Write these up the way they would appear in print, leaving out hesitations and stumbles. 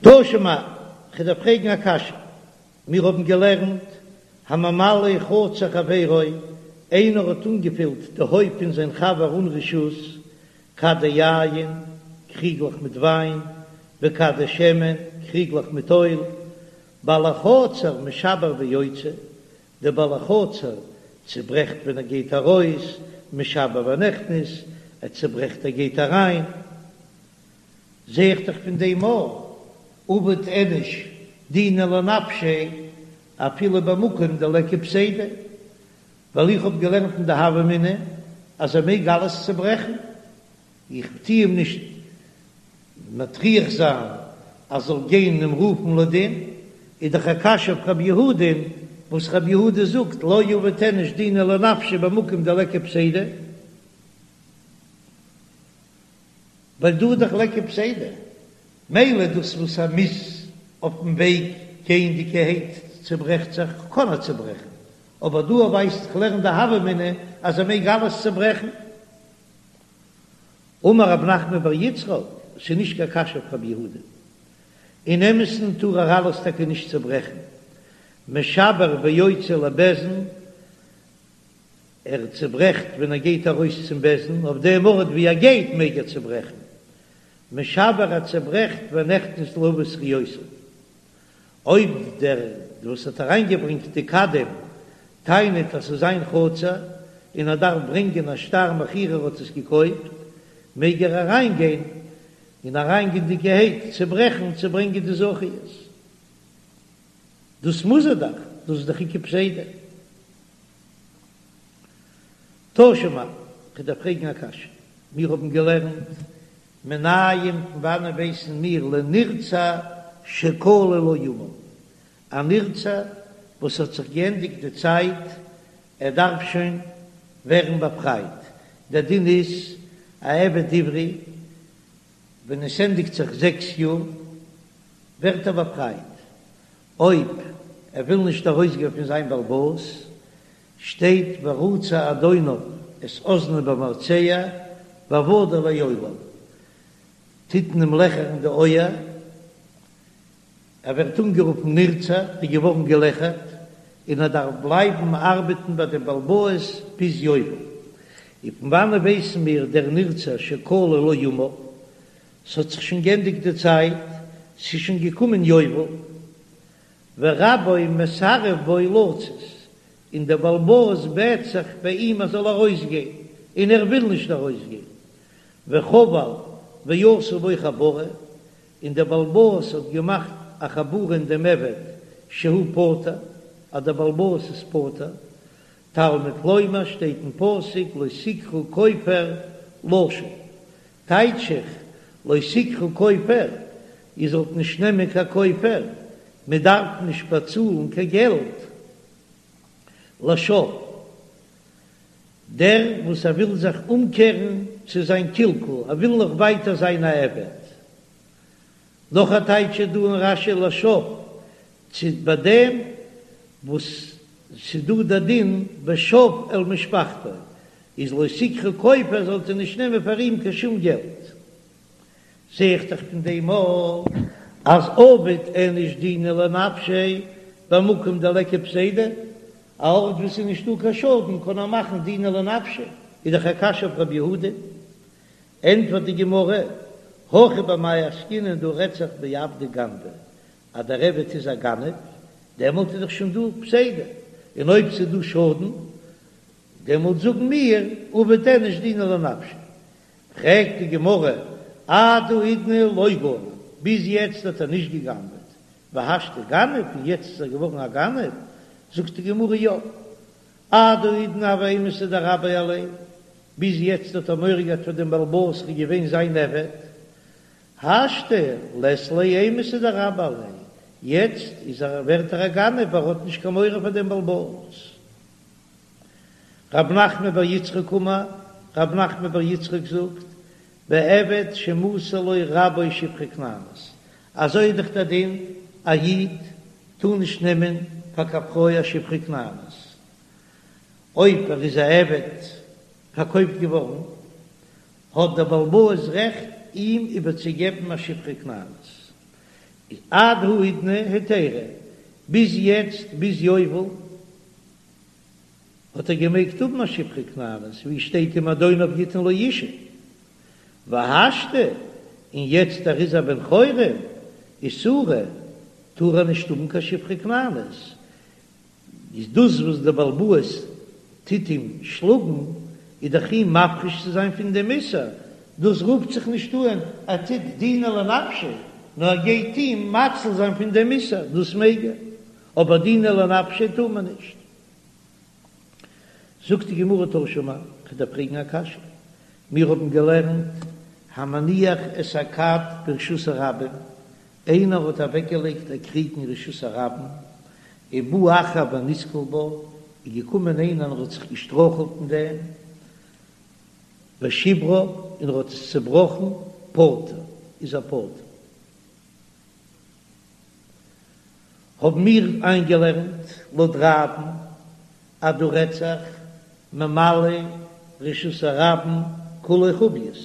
תא שמע, כ'דארף פרעגן א קשיא, מיר האבן געלערנט, הממלא חצר חברו, איינער האט אנגעפילט די הויף פון זיין חבר אן רשות, כדי יין, קריגלעך מיט וויין, וכדי שמן, קריגלעך מיט אויל, בעל החצר משבר ויוצא, דער בעל החצר צוברעכט ווען ער גייט ארויס, משבר ונכנס, ער צוברעכט ער גייט אריין. זע איך דאך פון דעם אז עביד איניש דינא לנפשיה אפילו במקום דליכא פסידא, ווייל איך האב געלערנט אין די הוה אמינא אז ער מעג אלעס צוברעכן, איך טו אים נישט מטריח זיין אז זאל גיין אים רופן לדין, איז דאך א קשיא אויף רב יהודה'ן וואס רב יהודה זאגט לא עביד איניש דינא לנפשיה במקום דליכא פסידא. ווייל דא איז דאך ליכא פסידא, מילא דאס וואס ער מוז אויפן וועג גייענדיגערהייט צוברעכט זיך, קען ער צוברעכן, אבער דא ווייסט איך לערן די הוה אמינא אז ער מעג אלעס צוברעכן. אמר רב נחמן בר יצחק, ס'איז נישט קיין קשיא אויף רב יהודה, אין אמת'ן טאר ער אלעס טאקע נישט צוברעכן, משבר ויוצא לבית דין, ער צעברעכט ווען ער גייט ארויס צום בית דין, אויף דעם ארט ווי ער גייט מעג ער צעברעכן, משבר ער צעברעכט ונכנס להביא זכיותיו. אויב דער וואס האט אריינגעברענגט די כדים טענה'ט אז ס'איז זיין חצר און ער דארף ברענגען א שטר מכירה ער האט עס געקויפט, מעג ער אריינגיין און אריינגייענדיגערהייט צעברעכן צו ברענגען די זכיות. דאס מוז ער דאך, דאס איז דאך איכא פסידא. תא שמע, כ'דארף פרעגן א קשיא. מיר האבן געלערנט מנין פון וואנען ווייסן מיר לנרצע שכלו לו ימיו, א נרצע וואס האט זיך געענדיגט די צייט, ער דארף שוין ווערן באפרייט, דער דין איז א עבד עברי ווען עס ענדיגט זיך זעקס יאר ווערט ער באפרייט, אויב ער וויל נישט ארויסגיין פון זיין בעל הבית, שטייט ורצע אדוניו את אזנו במרצע ועבדו לעולם, טוט מען אים לעכערן די אויער, ער ווערט אנגערופן נרצע, איז געווארן געלעכערט, און ער דארף בלייבן ארבעטן ביי דעם בעל הבית ביז יובל. און פון וואנען ווייסן מיר דער נרצע שכלו לו ימיו? ס'האט זיך שוין גענדיגט די צייט, ס'איז שוין געקומען יובל, ורבו מסרב בו לצאת, און דער בעל הבית בעט זיך ביי אים ער זאל ארויסגיין, און ער וויל נישט ארויסגיין, וחבל ועשה בו חבורה, און דער בעל הבית האט געמאכט א חבורה אין דעם עבד שהוא פטור, אז דער בעל הבית איז פטור, תלמוד לומר שטייט אין פסוק לא תקחו כופר לשוב, טייטש איך, לא תקחו כופר, איר זאלט נישט נעמען קיין כופר, מען דארף נישט באצאלן קיין געלט לשב, דער וואס ער וויל זיך אומקערן צו זיין קלקול, ער וויל נאך ווייטער זיין א עבד. נאך א טייטש איז דא אין רש"י לשב, צו ביי דעם וואס ס'איז דא דער דין ושב אל משפחתו, איז לא תקחו כופר זאלט איר נישט נעמען פאר אים קיין שום געלט. זע איך דאך פון דעם אויך אז עביד איניש דינא לנפשיה במקום דליכא פסידא, א ארט וואו ס'איז נישטא קיין שאדן קען ער מאכן דינא לנפשיה, איז דאך א קשיא אויף רב יהודה. ענטפערט די גמרא, הכא במאי עסקינן דא רעדט זיך בעבדא גנבא, אז דער עבד איז א גנב, דעמאלט איז דאך שוין דא פסידא, און אויב ס'איז דא שאדן, דעמאלט זאגן מיר עביד איניש דינא לנפשיה. פרעגט די גמרא, עד האידנא לא גנב, ביז יעצט האט ער נישט גע'גנב'עט, והשתא גנב, און יעצט איז ער געווארן א גנב? זאגט די גמרא, יא, עד האידנא הוה אימתא דרביה עליה, ביז יעצט האט ער מורא געהאט פאר דעם בעל הבית ער איז געווען זיין עבד, השתא לית ליה אימתא דרביה עליה, יעצט איז ער ווערט ער א גנב ער האט נישט קיין מורא פאר דעם בעל הבית. רב נחמן בר יצחק אמר, רב נחמן בר יצחק זאגט, בעבד שמסר לו רבו שפחה כנענית, אזוי איז דאך דער דין, א איד טאר נישט נעמען פאר קיין פרוי א שפחה כנענית, אויב ער איז א עבד פארקויפט געווארן, האט דער בעל הבית רעכט אים איבערצוגעבן א שפחה כנענית. איז עד האידנא היתירא, ביז יעצט ביז יובל האט ער געמעגט האבן א שפחה כנענית, ווי שטייט אם אדוניו יתן לו אשה, והשתא, און יעצט ער איז א בן חורין, איסורא, טאר ער נישט האבן קיין שפחה כנענית, איז דאס וואס דער בעל הבית טוט אים שלאגן, איז דאך אים מפריש צו זיין פון דעם איסור, דאס רופט זיך נישט אן ער טוט דינא לנפשיה, נאר ער גייט אים מציל זיין פון דעם איסור, דאס מעג ער, אבער דינא לנפשיה טאר מען נישט. זאגט די גמרא תא שמע, כ'דארף פרעגן א קשיא, מיר האבן געלערנט המניח את הכד ברשות הרבים, איינער האט אוועקגעלייגט א קריג אין רשות הרבים, ובא אחר ונתקל בה, איז געקומען איינער און ער האט זיך געשטרויכלט אין דעם, ושברה, און ער האט עס צעבראכן, פטור, איז ער פטור. האבן מיר איינגעלערנט לויט רב'ן אז דא רעדט זיך ממלא רשות הרבים כולו חביות,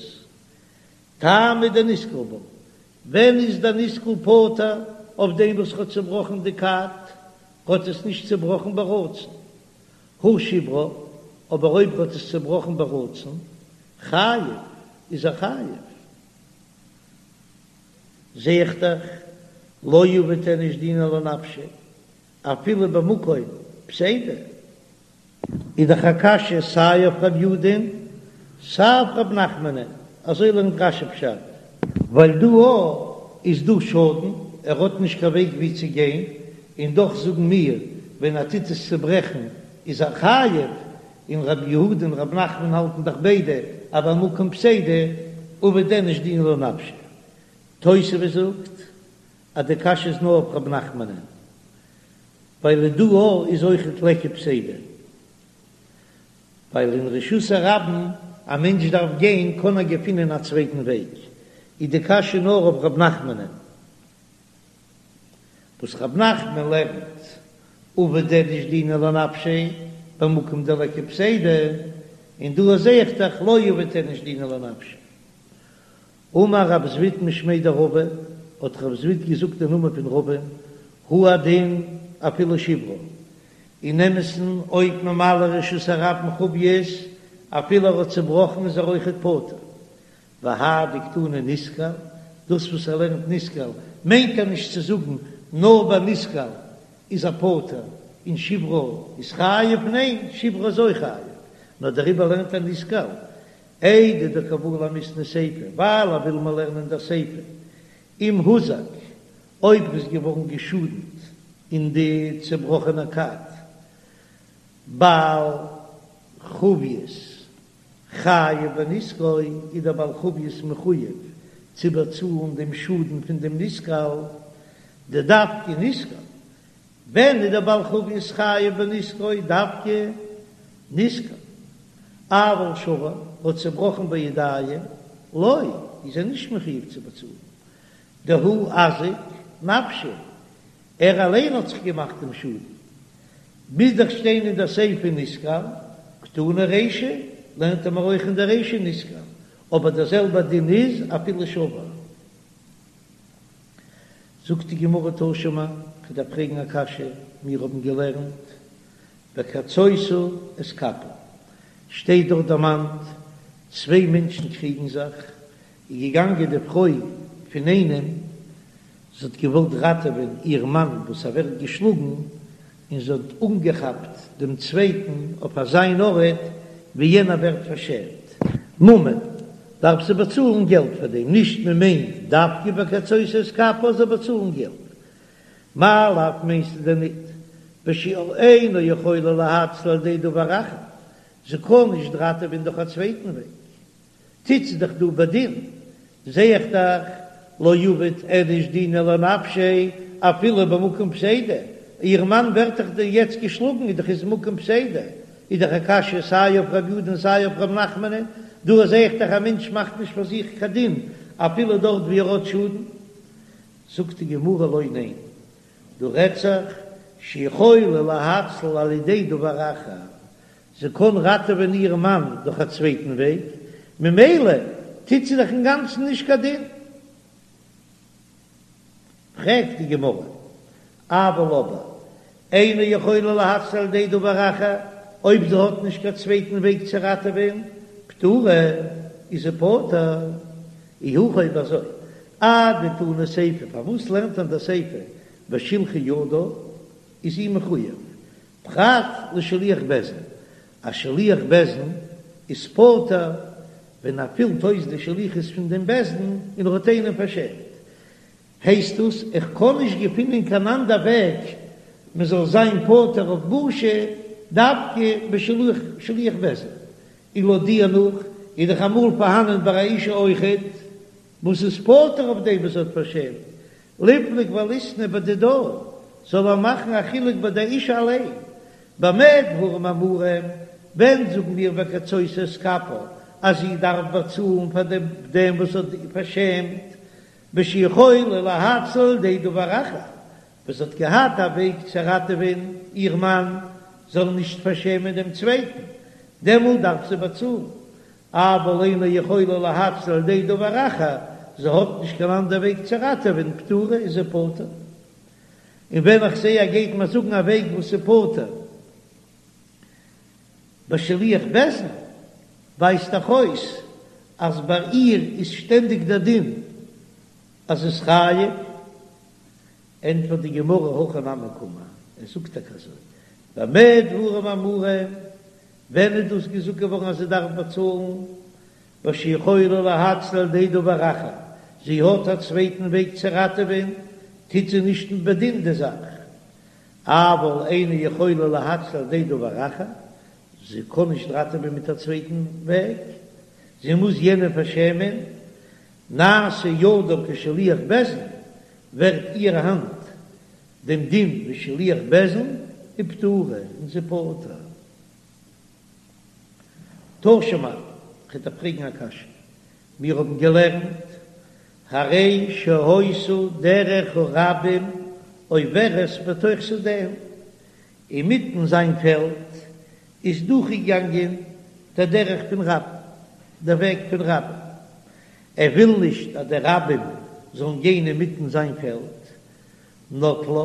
טעמא דנתקל בה, ווען איז דער נתקל פטור אויף דעם וואס האט צובראכן די כד, האט עס נישט צובראכן ברצון, הא שברה, אבער אויב האט עס צובראכן ברצון, חייב, איז ער חייב. זע איך דאך, לא עביד איניש דינא לנפשיה, אפילו במקום פסידא. איז דאך א קשיא סיי אויף רב יהודה'ן סיי אויף רב נחמנ'ן, אזוי לערנט רש"י פשט. ווייל דא א איז דא שאדן, ער האט נישט קיין וועג ווי צו גיין, און דאך זאגן מיר ווען ער טוט עס צוברעכן איז ער חייב, און רב יהודה און רב נחמן האלטן דאך ביידע אז במקום פסידא עביד איניש דינא לנפשיה. תוספות זאגט אז די קשיא איז נאר אויף רב נחמנ'ן. ווייל דא א איז אויכעט ליכא פסידא, ווייל אין רשות הרבים א מענטש דארף גיין קען ער געפינען א צווייטן וועג, איז די קשיא נאר אויף ר' נחמנ'ן, וואס ר' נחמן לערנט עביד איניש דינא לנפשיה במקום דליכא פסידא, און דא זעה איך דאך לא עביד איניש דינא לנפשיה. אמר רב זביד משמיה דרבא, האט רב זביד געזאגט אין נאמען פון רבא, הוא הדין אפילו שברה, אין אמת'ן אויב ממלא רשות הרבים חביות, אפילו ער האט צובראכן איז ער אויכעט פטור. והאי דקתני נתקל, דאס וואס ער לערנט נתקל מיינט ער נישט צו זאגן נאר ביי נתקל איז ער פטור און שברה איז חייב, ניין שברה איז אויך חייב, נאר דעריבער לערנט ער נתקל, איידי דקא בעי למיתני סיפא, ווייל ער וויל מיר לערנען דער סיפא, אם הוזק, אויב ער איז געווארן געשאדנט אין די צעבראכענע כד, בעל חביות חייב בנזקו, איז דער בעל חביות מחויב צו באצאלן דעם שאדן פון דעם נתקל, דדווקא נתקל, ווען איז דער בעל חביות חייב בנזקו דווקא נתקל, אבל שבר האט צובראכן בידיים לא, איז ער נישט מחויב צו באצאלן, דהוא אזיק נפשיה, ער אליין האט זיך געמאכט דעם שאדן, מוז דאך שטיין אין דער סיפא נתקל, קתני רישא, לערנט ער מיר אויך אין דער רישא נתקל, אבער דער זעלבער דין איז אפילו שבר. זאגט די גמרא תא שמע, כ'דארף פרעגן א קשיא, מיר האבן געלערנט וקצותה את כפה, שטייט דארט דערמאנט צוויי מענטשן קריגן זיך, איז געגאנגען די פרוי פון איינעם, זי האט געוואלט ראטעווען איר מאן וואס ער ווערט געשלאגן, און זי האט אנגעכאפט דעם צווייטן אויף אזיין ארט ווי יענער ווערט פארשעמט. ממון, דארף זי באצאלן געלט פאר דעם, נישט מען מיינט דווקא וקצותה את כפה זאל באצאלן געלט. מאי לאו מיינסטו דען ניט בשאינה יכולה להציל על ידי דבר אחר, זי קען נישט ראטעווען דורך א צווייטן וועג. טוט זי דאך דא בדין, זע איך דאך לא עביד איניש דינא לנפשיה אפילו במקום פסידא, איר מאן ווערט דאך דא יעצט געשלאגן איז דאך איז מקום פסידא, איז דאך א קשיא סיי אויף רב יודא און סיי אויף רב נחמנ'ען, דא זע איך דאך א מענטש מאכט נישט פאר זיך קיין דין אפילו דארט ווי ער האט שאדן. זאגט די גמרא לא ניין, דא רעדט זיך שיכולה להציל על ידי דבר אחר, זי קען ראטעווען איר מאן דורך א צווייטן וועג, ממילא טוט זי דאך אינגאנצן נישט קיין דין. פרעגט די גמרא, אבל אבער אינה יכולה להציל על ידי דבר אחר, אויב זי האט נישט קיין צווייטן וועג צו ראטעווען, פטורה, איז זי פטור. אי הכי אויב אזוי, אדתני סיפא, פארוואס לערנט מען די סיפא בשלחה ידה, איז זי מחויב, פרט לשליח בית דין, א שליח בית דין איז פטור ווען ער פילט אויס די שליחות פון דעם בית דין און ער האט איינעם פארשעמט, הייסט דאס איך קען נישט געפינען קיין אנדער וועג מען זאל זיין פטור אויף בושה דווקא בשליח בית דין, און לויט דיר נאך איז דאך אמאל פארהאנען ביי א אישה אויכעט וואס איז פטור אויף דעם וואס האט פארשעמט, ליפלוג וליתני בדידה, זאל ער מאכן א חילוק ביי די אישה אליין, במה דברים אמורים, ווען זאגן מיר וקצותה את כפה אז זי דארף באצאלן פאר דעם וואס האט פארשעמט, בשיכולה להציל על ידי דבר אחר, וואס האט געהאט א וועג צו ראטעווען איר מאן זאל נישט פארשעמען דעם צווייטן, דעמאלט דארף זי באצאלן, אבל אינה יכולה להציל על ידי דבר אחר, זי האט נישט קיין אנדער וועג צו ראטעווען, פטורה איז זי פטור. און ווען איך זע ער גייט מיר זאגן א וועג וואס איז פטור בשליח בית דין, ווייזט דאך אויס אז ביי איר איז שטענדיג דער דין אז איז חייב. ענטפערט די גמרא הכי נמי קאמר, ער זאגט טאקע אזוי, במה דברים אמורים, ווען איז דאס געזאגט געווארן אז זי דארף באצאלן? בשיכולה להציל על ידי דבר אחר, זי האט א צווייטן וועג צו ראטעווען, טוט זי נישט בדין די זאך, אבל אינה יכולה להציל על ידי דבר אחר, זי קען נישט ראטעווען מיט א צווייטן וועג, זי מוז יענעם פארשעמען, נעשה ידה כשליח בית דין, ווערט איר האנט דעם דין ווי שליח בית דין, ופטורה, און זי פטור. תא שמע, כ'וועל דיר פרעגן א קשיא, מיר האבן געלערנט, הרי שהיתה דרך הרבים עוברת בתוך שדהו, אינמיטן זיין פעלד איז דורכגעגאנגען דער דרך פון רבים, דער וועג פון רבים, ער וויל נישט אז די רבים זאלן גיין אינמיטן זיין פעלד, נטלה,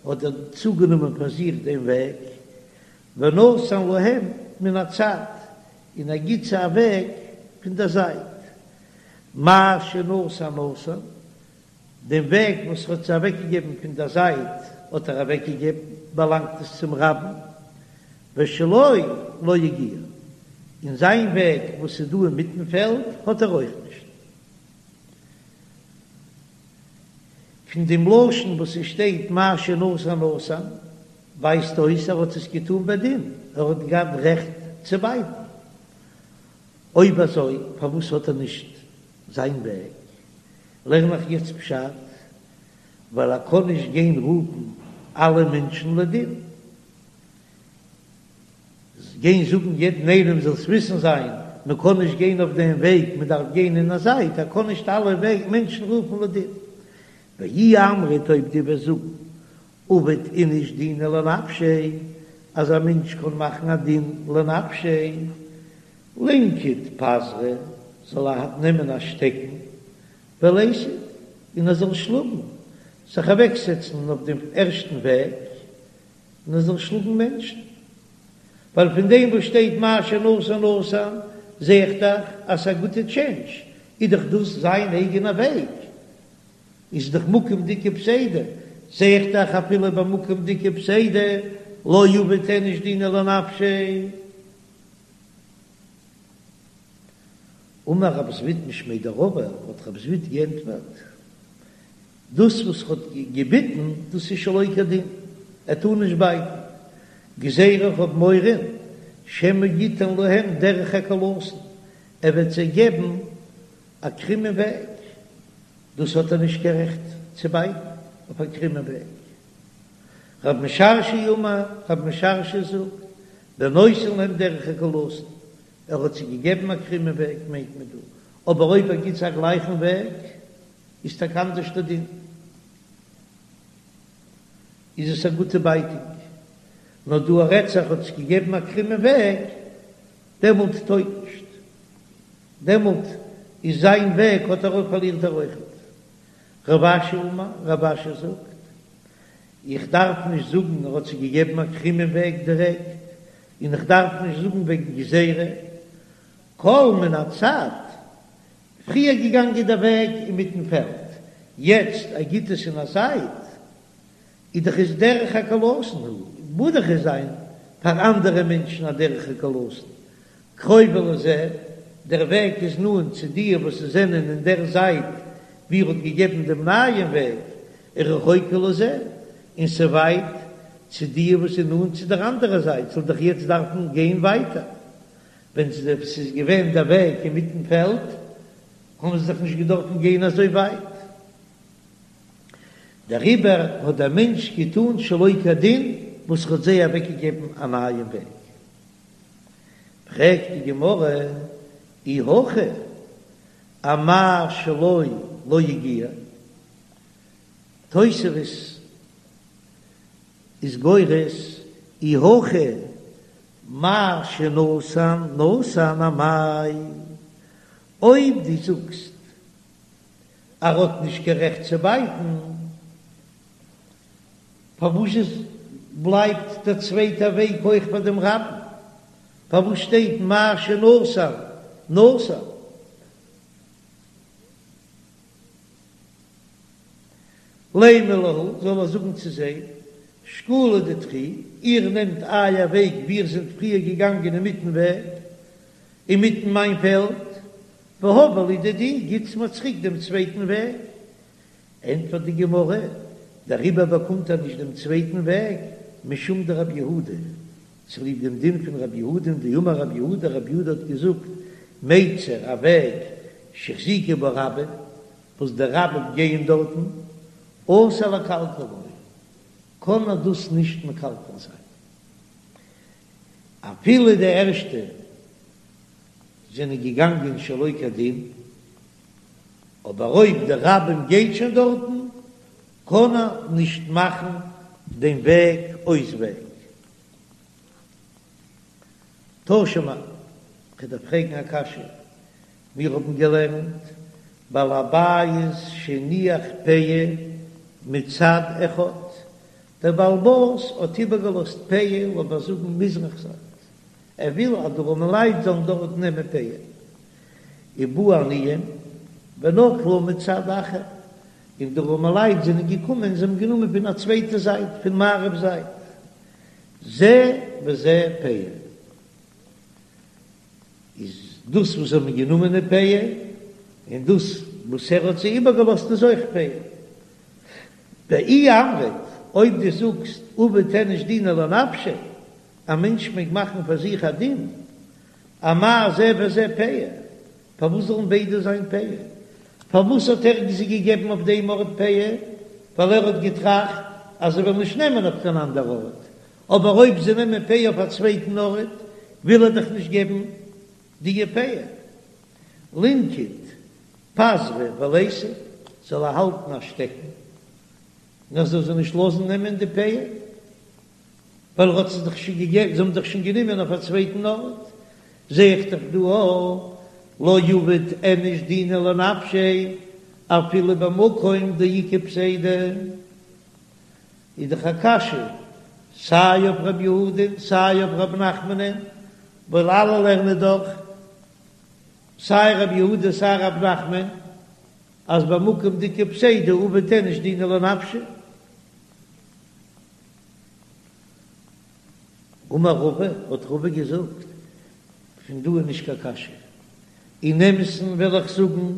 האט ער צוגענומען פאר זיך דעם וועג, ונתן להם מן הצד, און ער גיט זיי א וועג פון דער זייט, מה שנתן נתן, דעם וועג וואס ער האט זיי אוועקגעגעבן פון דער זייט האט ער אוועקגעגעבן, באלאנגט עס צום רבים, ושלו לא הגיע, און זיין וועג וואס איז דא אינמיטן פעלד האט ער אויך נישט. פון דעם לשון וואס עס שטייט מה שנתן נתן, ווייזט אויס ער האט עס געטאן בדין, ער האט געהאט רעכט צו בייטן. אויב אזוי פארוואס האט ער נישט זיין וועג? לערן איך יעצט פשט, ווייל ער קען נישט גיין רופן אלע מענטשן לדין, גיין זאגן יעדן איינעם זאלסט וויסן זיין, מען קען נישט גיין אויף דעם וועג, מען דארף גיין אין א זייט, ער קען נישט אלע מענטשן רופן לדין. ואי אמרת אויב דו וועסט זאגן עביד איניש דינא לנפשיה, אז א מענטש קען מאכן א דין לנפשיה, לינקוט פזרא, זאל ער נעמען א שטעקן, וליתיב, און ער זאל שלאגן, זיך אוועקזעצן אויף דעם ערשטן וועג, און ער זאל שלאגן מענטשן. ווייל פון דעם וואס שטייט מה שנתן נתן, זע איך דאך אז ס'איז א גוטע טשענדזש, איז דאך דאס זיין אייגענע וועג. איז דאך מקום דאיכא פסידא, זע איך דאך אפילו במקום דאיכא פסידא לא עביד איניש דינא לנפשיה. אמר רב זביד משמיה דרבא, האט רב זביד געענטפערט, דאס וואס ר'האט געביטן דאס איז שלא כדין, ער טאר נישט בייטן, גזירה איך האב מורא שמא יתן להם דרך עקלתון, ער וועט זיי געבן א קרומען וועג, דאס האט ער נישט קיין רעכט צו בייטן אויף א קרומען וועג. רב משרשיא אמר, רב משרשיא זאגט, בנותן להם דרך עקלתון, ער האט זיי געגעבן א קרומען וועג מיינט מען דא, אבער אויב ער גיט זיי א גלייכן וועג איז טאקע אנדערש דער דין, איז עס א גוטע בייטונג, נאר דא רעדט זיך האט זיי געגעבן א קרומען וועג, דעמאלט טויג נישט. דעמאלט איז זיין וועג האט ער אויך פארלירט ער אויכעט. רב אשי אמר, רב אשי זאגט, איך דארף נישט זאגן ער האט זיי געגעבן א קרומען וועג דירעקט, און איך דארף נישט זאגן וועגן גזירה, כל מן הצד, פריער געגאנגען דער וועג אינמיטן פעלד, יעצט ער גיט עס אין א זייט, איז דאך עס דרך עקלתון הוא, מוז דאך עס זיין פאר אנדערע מענטשן א דרך עקלתון, קרובה לזה, דער וועג איז נאנט צו די וואס זענען אין דער זייט ווי ער האט געגעבן דעם נייעם וועג, ורחוקה לזה, און ס'ווייט צו די וואס איז נאנט צו דער אנדערע זייט, זאל דאך יעצט דארפן גיין ווייטער. ווען ס'איז געווען דער וועג אינמיטן פעלד, האבן זיי זיך נישט געדארפן גיין אזוי ווייט. דעריבער האט דער מענטש געטאן שלא כדין וואס ער האט זיי אוועקגעגעבן א נייעם וועג. פרעגט די גמרא, אי הכי אמאי שלו לא הגיע? תוספות איז גורס, אי הכי מה שנתן נתן אמאי, אויב דו זאגסט ער האט נישט קיין רעכט צו בייטן, פארוואס איז בלייבט דער צווייטער וועג אויך פאר דעם רבים? פארוואס שטייט מה שנתן נתן? לימא להו, זאל ער זאגן צו זיי, שקולו דידכו, איר נעמט אייער וועג ווי איר זענט פריער געגאנגען אינמיטן וועג, אינמיטן מיין פעלד, והבו לי דידי, גיטס מיר צוריק דעם צווייטן וועג. ענטפערט די גמרא, דעריבער באקומט ער נישט דעם צווייטן וועג, משום דרבי יהודה, צוליב דעם דין פון רבי יהודה, דאמר רבי יהודה, רבי יהודה האט געזאגט, מיצר, א וועג, שהחזיקו בו רבים, וואס די רבים גייען דארטן, אסור לקלקלו, קען ער דאס נישט מקלקל זיין, אפילו די ערשטע זענען געגאנגען שלא כדין, אבער אויב די רבים גייט שוין דארטן, קען ער נישט מאכן דעם וועג אויס וועג. תא שמע, כ'דארף פרעגן א קשיא, מיר האבן געלערנט בעל הבית שהניח פאה מצד אחד, דער בעל הבית האט איבערגעלאזט פאה לאמיר זאגן מזרח זייט, ער וויל אז די ארעמעלייט זאלן דארט נעמען פאה, ובאו עניים ונטלו מצד אחר, און די ארעמעלייט זענען געקומען זיי האבן גענומען פון א צווייטע זייט, פון מערב זייט, זה וזה פאה. איז דאס וואס זיי האבן גענומען איז פאה, און דאס וואס ער האט זיי איבערגעלאזט איז אויך פאה. ואי אמרת, אויב דו זאגסט עביד איניש דינא לנפשיה, א מענטש מעג מאכן פאר זיך א דין, אמאי זה וזה פאה, פארוואס זאלן ביידע זיין פאה? פארוואס האט ער זיי געגעבן אויף דעם ארט פאה? ווייל ער האט געטראכט אז זיי וועלן נישט נעמען אויף קיין אנדער ארט, אבער אויב זיי נעמען פאה אויף א צווייטן ארט, וויל ער דאך נישט געבן די פאה. לינקוט פזרא וליתיב, זאל ער האלטן א שטעקן, און ער זאל זיי נישט לאזן נעמען די פאה, ווייל ער האט זיי דאך שוין געגעבן, זיי האבן דאך שוין גענומען אויף א צווייטן ארט, זע איך דאך דא א לא עביד איניש דינא לנפשיה אפילו במקום דאיכא פסידא. איז דאך א קשיא סיי אויף ר' יהודה'ן סיי אויף ר' נחמנ'ן, ווייל אלע לערנען דאך סיי ר' יהודה סיי ר' נחמן אז במקום דאיכא פסידא עביד איניש דינא לנפשיה. אמר רבא, האט רבא געזאגט, פון דא איז נישט קיין קשיא, אין אמת'ן וועל איך זאגן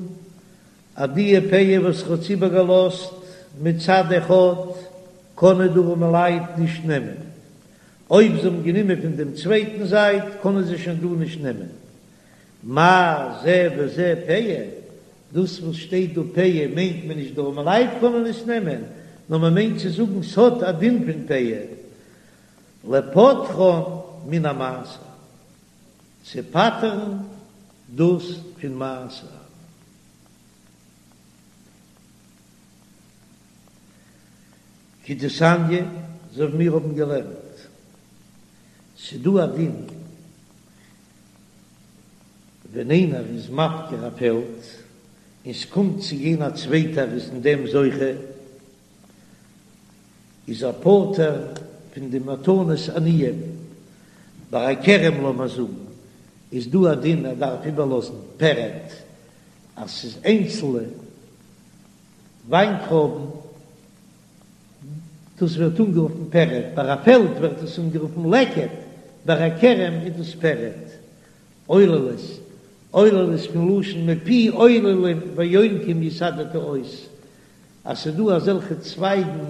אז די פאה וואס ער האט איבערגעלאזט מצד אחד קענען די ארעמעלייט נישט נעמען, אויב זיי האבן גענומען פון דעם צווייטן זייט קענען זיי שוין דא נישט נעמען. מאי זה וזה פאה, דאס וואס שטייט דא פאה מיינט מען נישט די ארעמעלייט קענען עס נעמען, נאר מען מיינט צו זאגן ס'האט א דין פון פאה, לפוטרן מן המעשר, צו פטר'ן דאס פון מעשר. כדתניא, אזוי ווי מיר האבן געלערנט, ס'דא א דין ווען איינער איז מפקיר א פעלד. און ס'קומט צו גיין א צווייטער איז אין דעם זוכה, איז ער פטור פון די מתנות עניים. ביי א כרם לאמיר זאגן איז דא א דין ער דארף איבערלאזן פרד אז ס'איז איינצלנע וויינטרויבן, דאס ווערט אנגערופן פרד, ביי א פעלד ווערט עס אנגערופן לקט, ביי א כרם איז דאס פרד. עוללות, עוללות פון לשון מפי עוללים ויונקים יסדת עוז, אז ס'איז דא אזעלכע צווייגן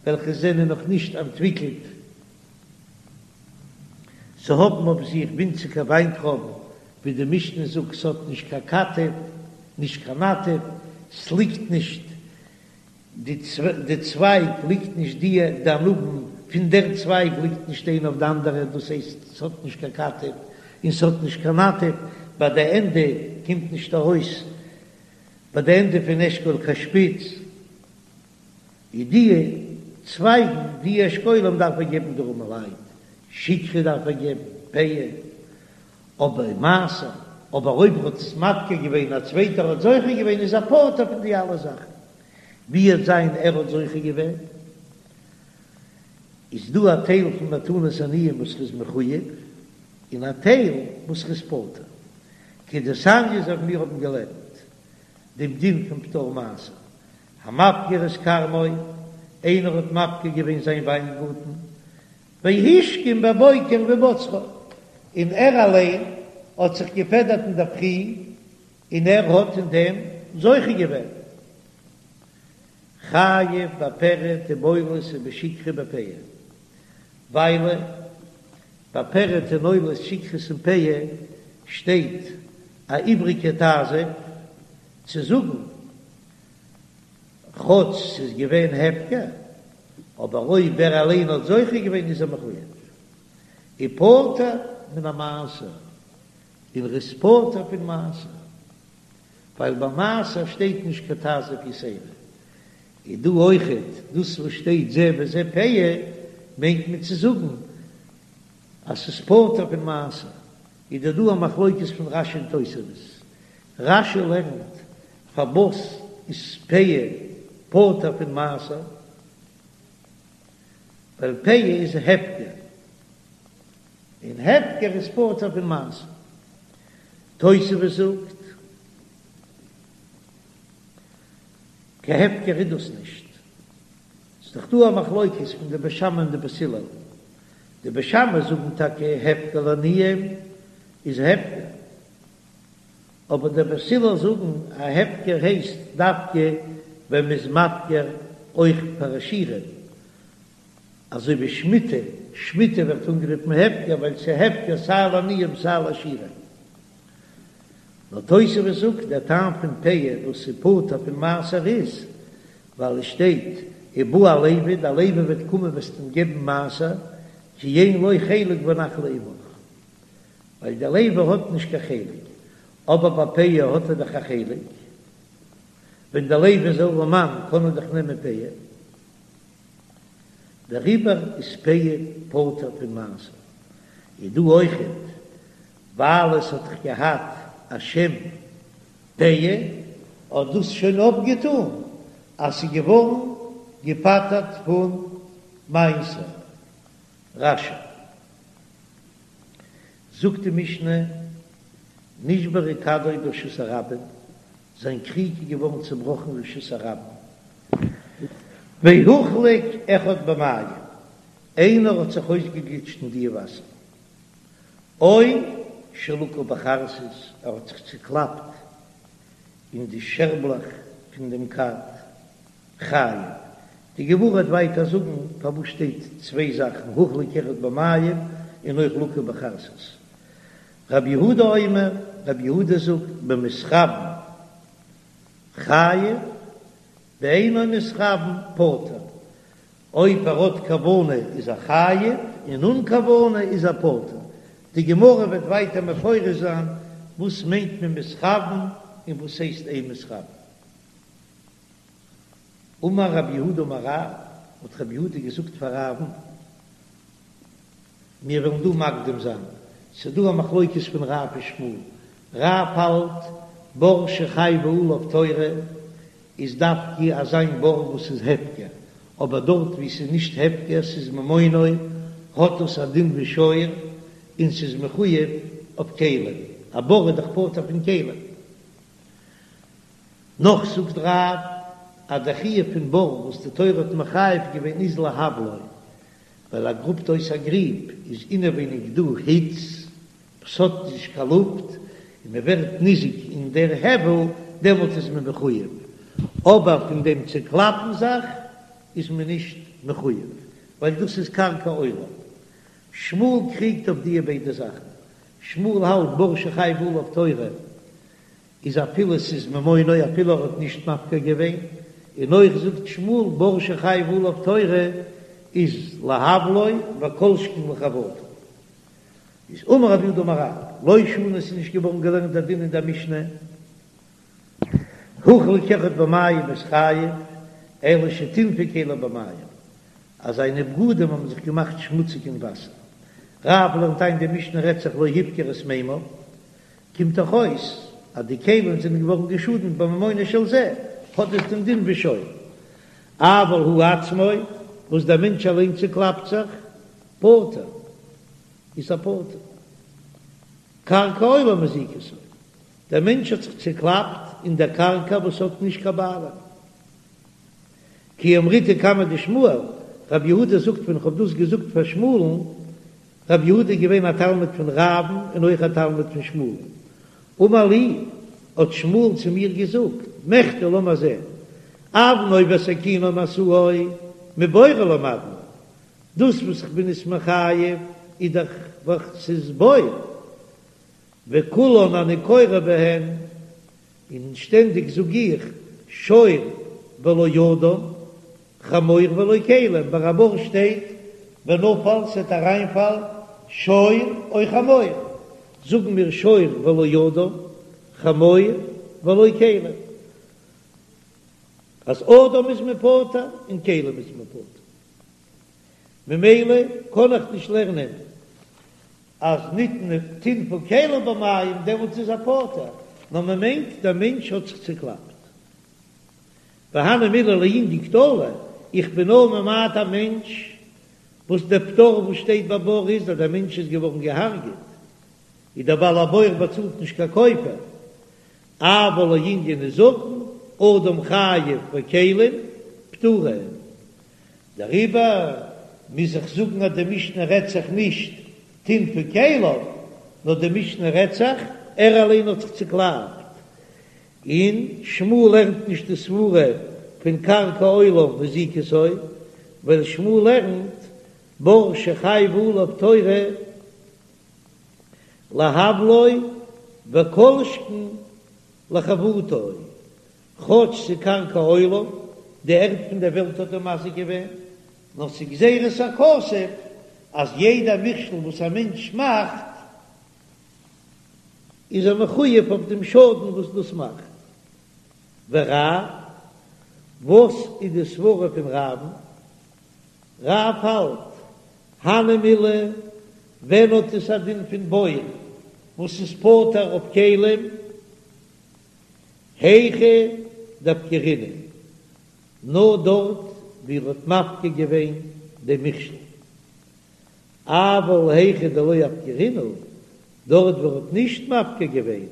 וועלכע זענען נאך נישט אנטוויקלט, ס'האבן אויף זיך ווינציגער וויינטרויבן, ווי די משנה זאגט ס'האט נישט קיין כתף, נישט קיין נטף, ס'ליגט נישט די צווייג ליגט נישט די די ענבים פון דער צווייג ליגט נישט איינע אויף די אנדערע דאס הייסט ס'האט נישט קיין כתף און ס'האט נישט קיין נטף ביי די ענדע קומט נישט ארויס ביי די ענדע פון אשכול קיין שפיץ איז די צווייגן די אשכולים דארף ער געבן די ארעמעלייט שכחה דארף ער געבן פאה אבער מעשר אבער אויב ער האט עס מפקיר געווען א צווייטער האט זוכה געווען איז ער פטור פון די אלע זאכן. ווי וועט זיין ער האט זוכה געווען, איז דא א טייל פון מתנות עניים וואס ר'איז מחויב, און א טייל וואס ר'איז פטור. כדתניא אזוי ווי מיר האבן געלערנט דעם דין פון פטור מעשר, המפקיר את כרמו, איינער האט מפקיר געווען זיין וויינגארטן, והשכים בבוקר ובצרו, און ער אליין האט זיך געפעדערט אינדערפרי און ער האט אין דעם זוכה געווען. חייב בפרד ובעולות ובשכחה בפאה, ווייל ביי פרד און עולות שכחת און פאה שטייט א איבריגע תעזוב צו זאגן כאטש ס'איז געווען הפקר, אבער אויב ער אליין האט זוכה געווען איז ער מחויב ופטור מן המעשר. און ר'איז פטור פון מעשר, ווייל ביי מעשר שטייט נישט קיין תעזוב יתירה, איז דא אויכעט דאס וואס שטייט זה וזה פאה, מיינט מען צו זאגן אז ס'איז פטור פון מעשר, איז דא דא א מחלוקת פון רש"י און תוספות, רש"י לערנט פארוואס איז פאה פטור פון מעשר, ווייל פאה איז הפקר. און הפקר איז פטור פון מעשר. תוספות זאגט, קיין הפקר איז דאס נישט. ס'איז דאך דא א מחלוקת פון די בית שמאי און די בית הלל. די בית שמאי זאגן טאקע הפקר לעניים איז הפקר. אבער די בית הלל זאגן א הפקר הייסט דווקא ווען מ'איז מפקיר אויך פאר עשירים. אזוי ווי שמיטה, שמיטה ווערט אנגערופן הפקר ווייל ס'איז הפקר סיי לעניים סיי לעשירים. נאר תוספות זאגט דער טעם פון פאה וואס איז פטור פון מעשר איז ווייל עס שטייט ובא הלוי, דער לוי וועט קומען וועסט אים געבן מעשר כי אין לו חלק ונחלה עמך, ווייל דער לוי האט נישט קיין חלק, אבער ביי פאה האט ער דאך א חלק, ווען דער לוי איז ארעמאן קען ער דאך נעמען פאה. דעריבער איז פאה פטור פון מעשר. איז דא אויכעט ווייל עס האט דאך געהאט א שם פאה, האט דאס שוין אפגעטאן אז ס'איז געווארן געפטר'ט פון מעשר. רש"י זאגט די משנה, נשברה כדו ברשות הרבים, זיין קריג איז געווארן צעבראכן רשות הרבים, והוחלק אחד במים, איינער האט זיך אויסגעגליטשט אין די וואסער, או שלקה בחרסית, ער האט זיך צוקלאפט אין די שערבלעך פון דעם כד, חייב. די גמרא וועט ווייטער זאגן פארוואס שטייט צוויי זאכן הוחלק אחד במים און אויך לקה בחרסית. רבי יהודה אומר, רבי יהודה זאגט במתכוין חייב, באינו מתכוין פטור, אויב ער האט כוונה איז ער חייב, און אן כוונה איז ער פטור. די גמרא וועט ווייטער מפרש זיין וואס מיינט מען מתכוין און וואס הייסט אין מתכוין. אמר רב יהודה אמר רב, האט רב יהודה געזאגט פאר רב'ן, מיר וועלן דא מקדים זיין, ס'איז דא א מחלוקת פון רב און שמואל, רב האלט. בור שחייבה עליו תורה איז דווקא אזא בור וואס איז הפקר, אבער דארט וואו ס'איז נישט הפקר ס'איז ממונו האט עס א דין ווי שור און ס'איז מחויב אויף כלים, א בור איז דאך פטור פון כלים. נאך זאגט רב אז דער חיוב פון בור וואס די תורה האט מחייב געווען איז להבלו, ווייל ער גראבט אויס א גריב איז אינעווייניג דא היץ וואס האט נישט קיין לופט און מען ווערט ניזוק אין דער הבל דעמאלט איז מען מחויב, אבער פון דעם צוקלאפן זיך איז מען נישט מחויב ווייל דאס איז קרקע עולם. שמואל קריגט אויף דיע ביידע זאכן, שמואל האלט בור שחייבה עליו תורה איז אפילו ס'איז ממונו אפילו ער האט נישט מפקיר געווען, און אויך זאגט שמואל בור שחייבה עליו תורה איז להבלו וכל שכן לחבטו. איז אמר רב יהודה אמר רב, לא שנו עס איז נישט געווארן געלערנט דער דין אין דער משנה, הוחלק אחד במים איז חייב, אלא שטינפו כליו במים, אז זיינע בגדים האבן זיך געמאכט שמוציג אין וואסער. רב לערנט איין די משנה רעדט זיך לא הפקיר את מימיו, קומט דאך אויס אז די כלים זענען געווארן געשאדנט בממונו של זה, האט עס דעם דין ווי שור. אבל הוא עצמו, וואס דער מענטש אליין צוקלאפט זיך, פטור, איז ער פטור. קרקע עולם מזיקתו, דער מענטש האט זיך צוקלאפט אין דער קרקע וואס האט נישט קיין בעלים. כי אמריתה קמיה דשמואל, רב יהודה זאגט ווען איך האב דאס געזאגט פאר שמואל'ן, רב יהודה איז געווען א תלמיד פון רב'ן און אויך א תלמיד פון שמואל'ן. אמר לי, האט שמואל צו מיר געזאגט, מכדי לאמיר זען, אבנו וסכינו ומשאו מבורו למדנו, דאס וואס איך בין עס מחייב איז דאך ווייל ס'איז בור, וכולן אני קורא בהן, און שטענדיג זאג איך שור ולא אדם, חמור ולא כלים, ביי א בור שטייט ונפל ס'עט אריינפאלן שור או חמור, זאגן מיר שור ולא אדם, חמור ולא כלים, אז אדם איז מען פטור און כלים איז מען פטור, ממילא קען איך נישט לערנען אז נטנפו כליו במים דעמאלטס איז ער פטור, נאר מען מיינט דער מענטש האט זיך צוקלאפט. והני מילי לענין קטלא, איך בין נאר ממעט א מענטש וואס דער פטור וואס שטייט ביי בור איז אז דער מענטש איז געווארן געהארגעט, איז דער בעל הבור באצאלט נישט קיין כופר, אבל לענין נזקין, אדם חייב וכלים פטורין. דעריבער מוז איך זאגן אז די משנה רעדט זיך נישט טינפו כליו, נאר די משנה רעדט זיך ער אליין האט זיך צוקלאפט, און שמואל לערנט נישט די סברה פון קרקע עולם מזיקתו, ווייל שמואל לערנט בור שחייבה עליו תורה להבלו וכל שכן לחבטו, כאטש ס'קרקע עולם, די ערד פון דער וועלט האט אים מזיק געווען, נאר ס'גזירת הכתוב אז יעדע מכשול וואס א מענטש מאכט איז ער מחויב אויף דעם שאדן וואס דאס מאכט. ורב, וואס איז די סברה פון רב'ן? רב האלט, הני מילי, ווען האט עס א דין פון בור וואס איז פטור אויף כלים? היכא דאפקרינהו, נאר דארט ווי ער האט מפקיר געווען דעם מכשול, אבל היכא דלא אפקרינהו, דארט ווי ער האט נישט מפקיר געווען,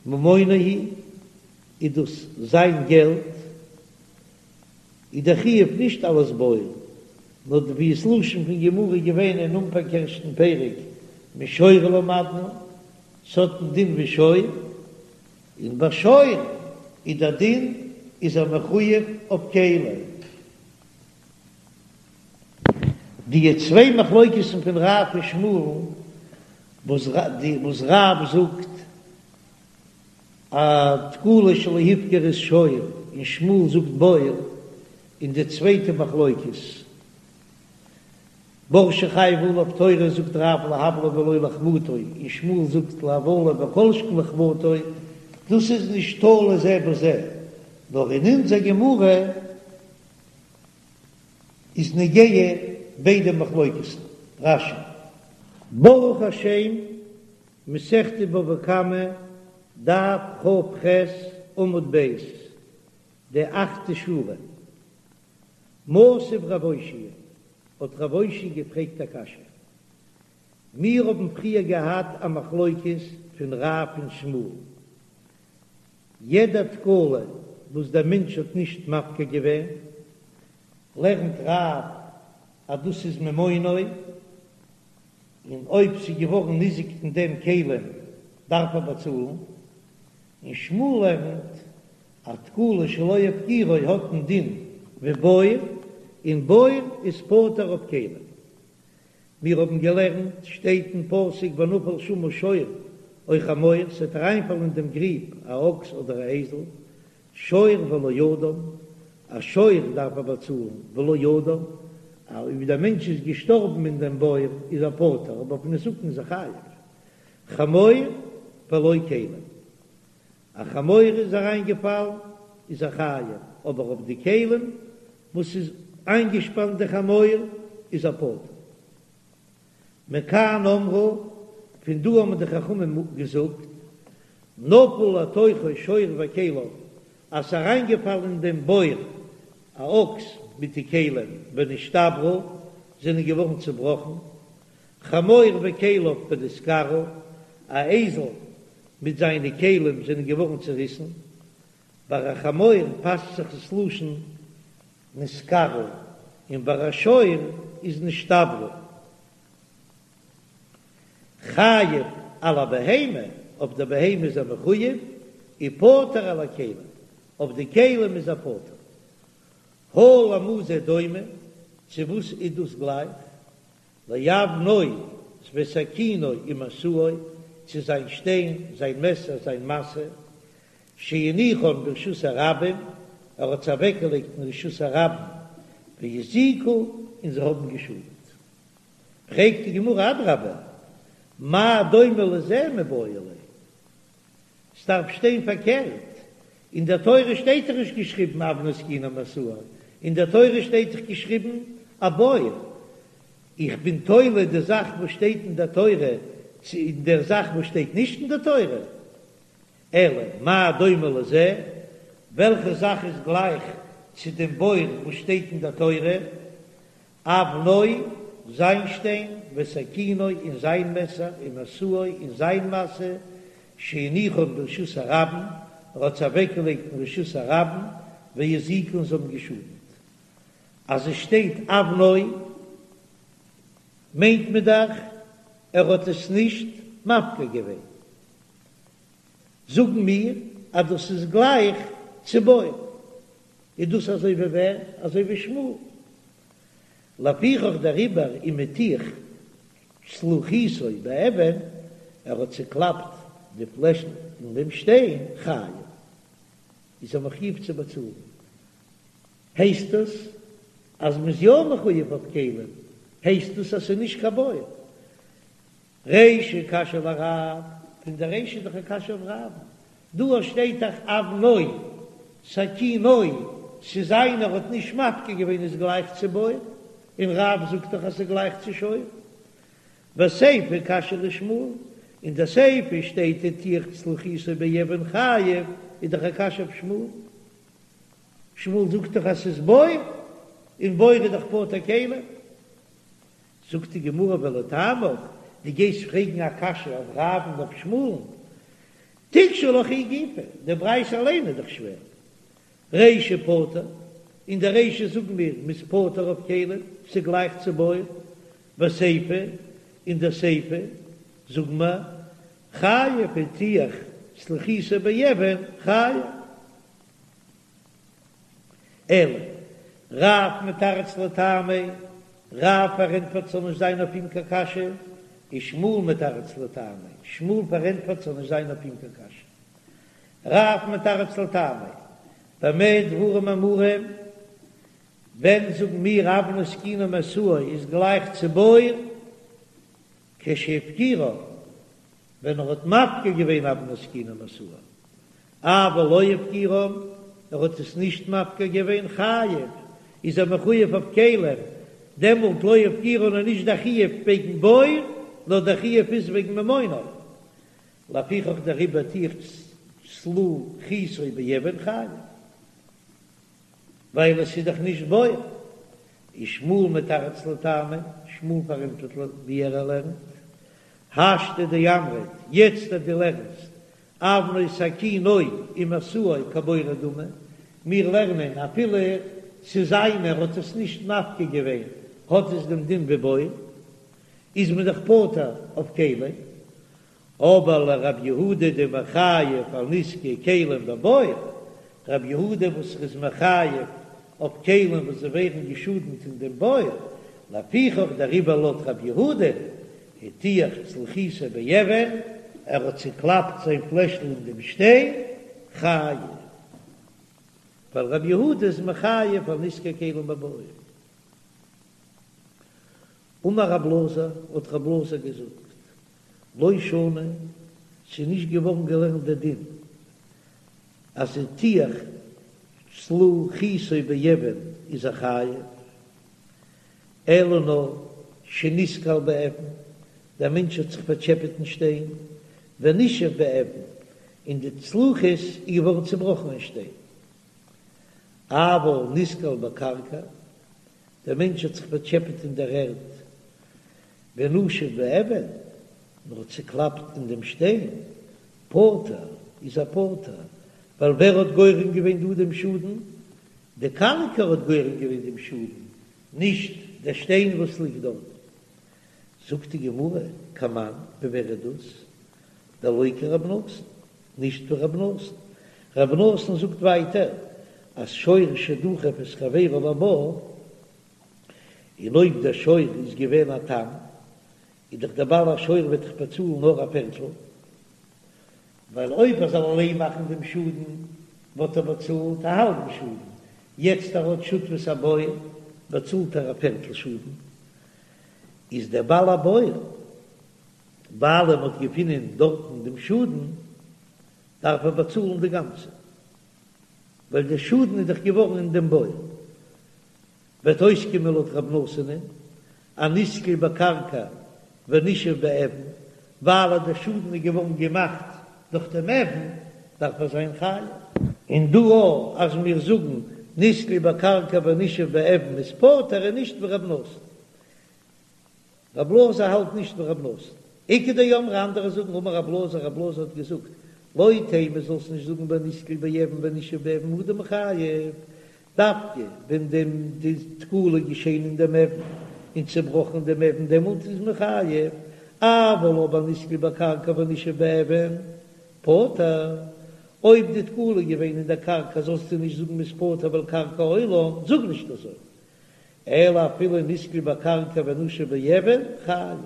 ממונו הוא, איז דאס זיין געלט, איז דער חיוב נישט אלס בור, נאר ווי ס'לשון פון גמרא געווען אין אנפאנג ערשטן פרק, משור למדנו, ס'האט א דין ווי שור, און ביי שור איז דער דין איז ער מחויב אויף כלים. די צוויי מחלוקת'ן פון רב און שמואל, וואס רב זאגט א תקלה שלא הפקיר איז שור און שמואל זאגט בור, און די צווייטע מחלוקת בור שחייבה עליו תורה זאגט רב להבלו ולא לחבטו און שמואל זאגט להבלו וכל שכן לחבטו, דאס איז נישט תלוי זה בזה, נאר אין אונזער גמרא איז נוגע ביידע מחלוקת'ן. רש"י. ברוך השם, מסכת בבא קמא. דף כ"ח עמוד ב', די אכטע שורה. מתיב רב אושעיא, האט רב אושעיא געפרעגט א קשיא. מיר האבן פריער געהאט א מחלוקת פון רב און שמואל. יעדע תקלה וואס דער מענטש האט נישט מפקיר געווען, לערנט רב אז דאס איז ממונו, און אויב ס'איז געווארן ניזוק פון דעם כלים דארף ער באצאלן, און שמואל לערנט אז תקלה שלא הפקירו האט א דין ווי בור, און בור איז פטור אויף כלים. מיר האבן געלערנט, שטייט אין פסוק ונפל שמה שור או חמור, ס'וועט אריינפאלן אין דעם גריב א אקס אדער א אייזל, שור ולא אדם, א שור דארף ער באצאלן, ולא אדם, אויב דער מענטש איז געשטארבן אין דעם בור איז ער פטור, אבער אויף נזקין איז ער חייב, חמור ולא כלים, א חמור איז אריינגעפאלן איז ער חייב, אבער אויף די כלים וואס איז איינגעשפאנט די חמור איז ער פטור. מכאן אמרו, פון דא האבן די חכמים געזאגט, נפל לתוכו שור וכליו, אז ס'איז אריינגעפאלן אין דעם בור א אקס מיט די כלים ונשתברו, זענען געווארן צובראכן, חמור וכליו ונתקרעו, א אייזל מיט זיינע כלים זענען געווארן צוריסן, ביי א חמור פאסט זיך עס לשון נתקרעו, און ביי א שור איז נשתברו. חייב על הבהמה, אויף די בהמה איז ער מחויב, ופטור על הכלים, אויף די כלים איז ער פטור. הא למה זה דומה, צו וואס איז דאס גלייך? לאבנו וסכינו ומשאו, צו זיין שטיין, זיין מעסער, זיין משא, שהניחן ברשות הרבים, ער האט זיי אוועקגעלייגט אין רשות הרבים, והזיקו, און זיי האבן געשאדט. פרעגט די גמרא אדרבה, מה דומה לזה מיבעי ליה? ס'דארף שטיין פארקערט, אין דער תורה שטייט דאך נישט געשריבן אבנו סכינו ומשאו, אין דער תורה שטייט דאך געשריבן א בור. איך בין תולה די זאך וואס שטייט אין דער תורה צו אין דער זאך וואס שטייט נישט אין דער תורה. אלא מה דומה לזה, וועלכע זאך איז גלייך צו דעם בור וואס שטייט אין דער תורה, אבנו, זיין שטיין, וסכינו, און זיין מעסער, ומשאו, און זיין משא, שהניחן ברשות הרבים, ער האט זיי אוועקגעלייגט אין רשות הרבים, והזיקו און זיי האבן געשאדנט. אז עס שטייט אבנו, מיינט מען דאך ער האט עס נישט מפקיר געווען. זאגן מיר אז דאס איז גלייך צו בור, איז דאס אזוי ווי ווער? אזוי ווי שמואל. לפיכך דעריבער אם הטיח צלוחיתו באבן, ער האט צוקלאפט די פלעשל אין דעם שטיין, חייב, איז ער מחויב צו באצאלן. הייסט עס אז מ'איז יא מחויב אויף כלים, הייסט עס אז ס'איז נישט קיין בור. רישא קשיא לרב, פון די רישא איז דאך א קשיא אויף רב, דא שטייט דאך אבנו, סכינו, ס'איז איינער האט נישט מפקיר געווען איז גלייך צו בור, און רב זאגט דאך אז ס'איז גלייך צו שור. וסיפא קשיא לשמואל, אין די סיפא שטייט הטיח צלוחיתו באבן חייב, איז דאך א קשיא אויף שמואל. שמואל זאגט דאך אז ס'איז בור, און בור איז דאך פטור כלים. זאגט די גמרא ולטעמיך, דו גייסט פרעגן א קשיא אויף רב און אויף שמואל'ן, תיקשי לך היא גופא, די ברייתא אליין איז דאך שווער, רישא פטור, אין די רישא זאגן מיר מ'איז פטור אויף כלים, ס'גלייך צו בור, וסיפא, אין די סיפא זאגן מיר חייב הטיח צלוחיתו באבן חייב. אלא רב מתרץ לטעמיה, רב פארענטפערט ס'זאל נישט זיין אויף אים קיין קשיא, ושמואל מתרץ לטעמיה, שמואל פארענטפערט ס'זאל נישט זיין אויף אים קיין קשיא. רב מתרץ לטעמיה, במה דברים אמורים, ווען זאגן מיר אבנו סכינו ומשאו איז גלייך צו בור, כשהפקירן, ווען ער האט מפקיר געווען אבנו סכינו ומשאו, אבל לא הפקירן, ער האט עס נישט מפקיר געווען, חייב, איז ער מחויב אויף כלים, דעמאלט לא הפקירן איז נישט דער חיוב וועגן בור, נאר דער חיוב איז וועגן ממונו. לפיכך דעריבער הטיח. צלוחיתו באבן חייב, ווייל עס איז דאך נישט בור. ושמואל מתרץ לטעמיה, שמואל פארענטפערט ווי ער לערנט, השתא דאמרת, יעצט אז דו לערנסט אבנו סכינו ומשאו כבורו דמי, מיר לערנען אפילו ס'איז זיינער האט עס נישט מפקיר געווען האט עס דעם דין ווי בור, איז מען דאך פטור אויף כלים, אבער לרב יהודה דמחייב על נזקי כלים בבור, רב יהודה וואס איז מחייב אויף כלים וואס זיי ווערן געשאדנט אין דעם בור, לפיכך דעריבער לויט רב יהודה הטיח צלוחיתו באבן, ער האט צוקלאפט זיין פלעשל אין דעם שטיין, חייב, ווייל רב יהודה איז מחייב על נזקי כלים בבור. אמר רב אלעזר, האט רב אלעזר געזאגט, לא שנו, ס'איז נישט געווארן געלערנט דער דין אז הטיח צלוחיתו באבן איז ער חייב, אלא נאר שנתקל באבן, דער מענטש האט זיך פארטשעפעט אין שטיין, ונישף באבן, און די צלוחית איז געווארן צעבראכן אין שטיין. אבל נתקל בקרקע, דער מענטש האט זיך פארטשעפעט אין דער ערד, ונשף באבן, נאר צוקלאפט אין דעם שטיין, פטור, איז ער פטור, ווייל ווער האט גורם געווען דא דעם שאדן? די קרקע האט גורם געווען דעם שאדן, נישט דער שטיין וואס ליגט דארט. זאגט די גמרא, כמאן, ווי ווער איז דאס? דלא כרב נתן, נישט ווי רב נתן. רב נתן זאגט ווייטער אז שור שדחף את חברו לבור, און אויב דער שור איז געווען א תם, איז דאך דער בעל השור וועט דאך באצאלן נאר א פערטל, ווייל אויב ער זאל אליין מאכן דעם שאדן וואלט ער באצאלט א האלבן שאדן, יעצט ער האט שותפות א בור באצאלט ער א פערטל שאדן, איז דער בעל הבור ווייל מען האט געפונען דארטן דעם שאדן דארף ער באצאלן די גאנצע, ווייל דער שאדן איז דאך געווארן אין דעם בור. וועט אויסקומען לויט רב נתן'ען אז נתקל בקרקע ונישף באבן, ווייל אז דער שאדן איז געווארן געמאכט דורך דעם אבן, דארף ער זיין חייב. און דא אויך אז מיר זאגן נתקל בקרקע ונישף באבן איז פטור איז נישט ווי רב נתן. רב אלעזר האלט נישט ווי רב נתן. איכא דאמרי אנדערע זאגן אמר רב אלעזר רב אלעזר האט געזאגט לא תימא זאלסט נישט זאגן בנתקל באבן ונישף באבן הוא דמיחייב דווקא ווען דעם די תקלה געשען אין דעם אבן און צעבראכן דעם אבן דעמאלט איז מען חייב אבל אבער נתקל בקרקע ונישף באבן פטור אויב די תקלה איז געווען אין דער קרקע זאלסטו נישט זאגן מ'איז פטור ווייל קרקע עולם זאג נישט אזוי אלא אפילו נתקל בקרקע ונשף באבן חייב,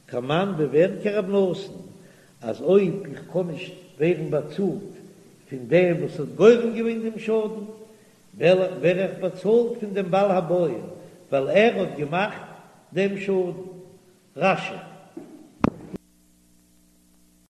כמאן ווי ווער כרב נתן, אז אויב איך קען נישט ווערן באצאלט פון דעם וואס האט גורם געווען דעם שאדן, ווער איך באצאלט פון דעם בעל הבור, ווייל ער האט געמאכט דעם שאדן. רש"י.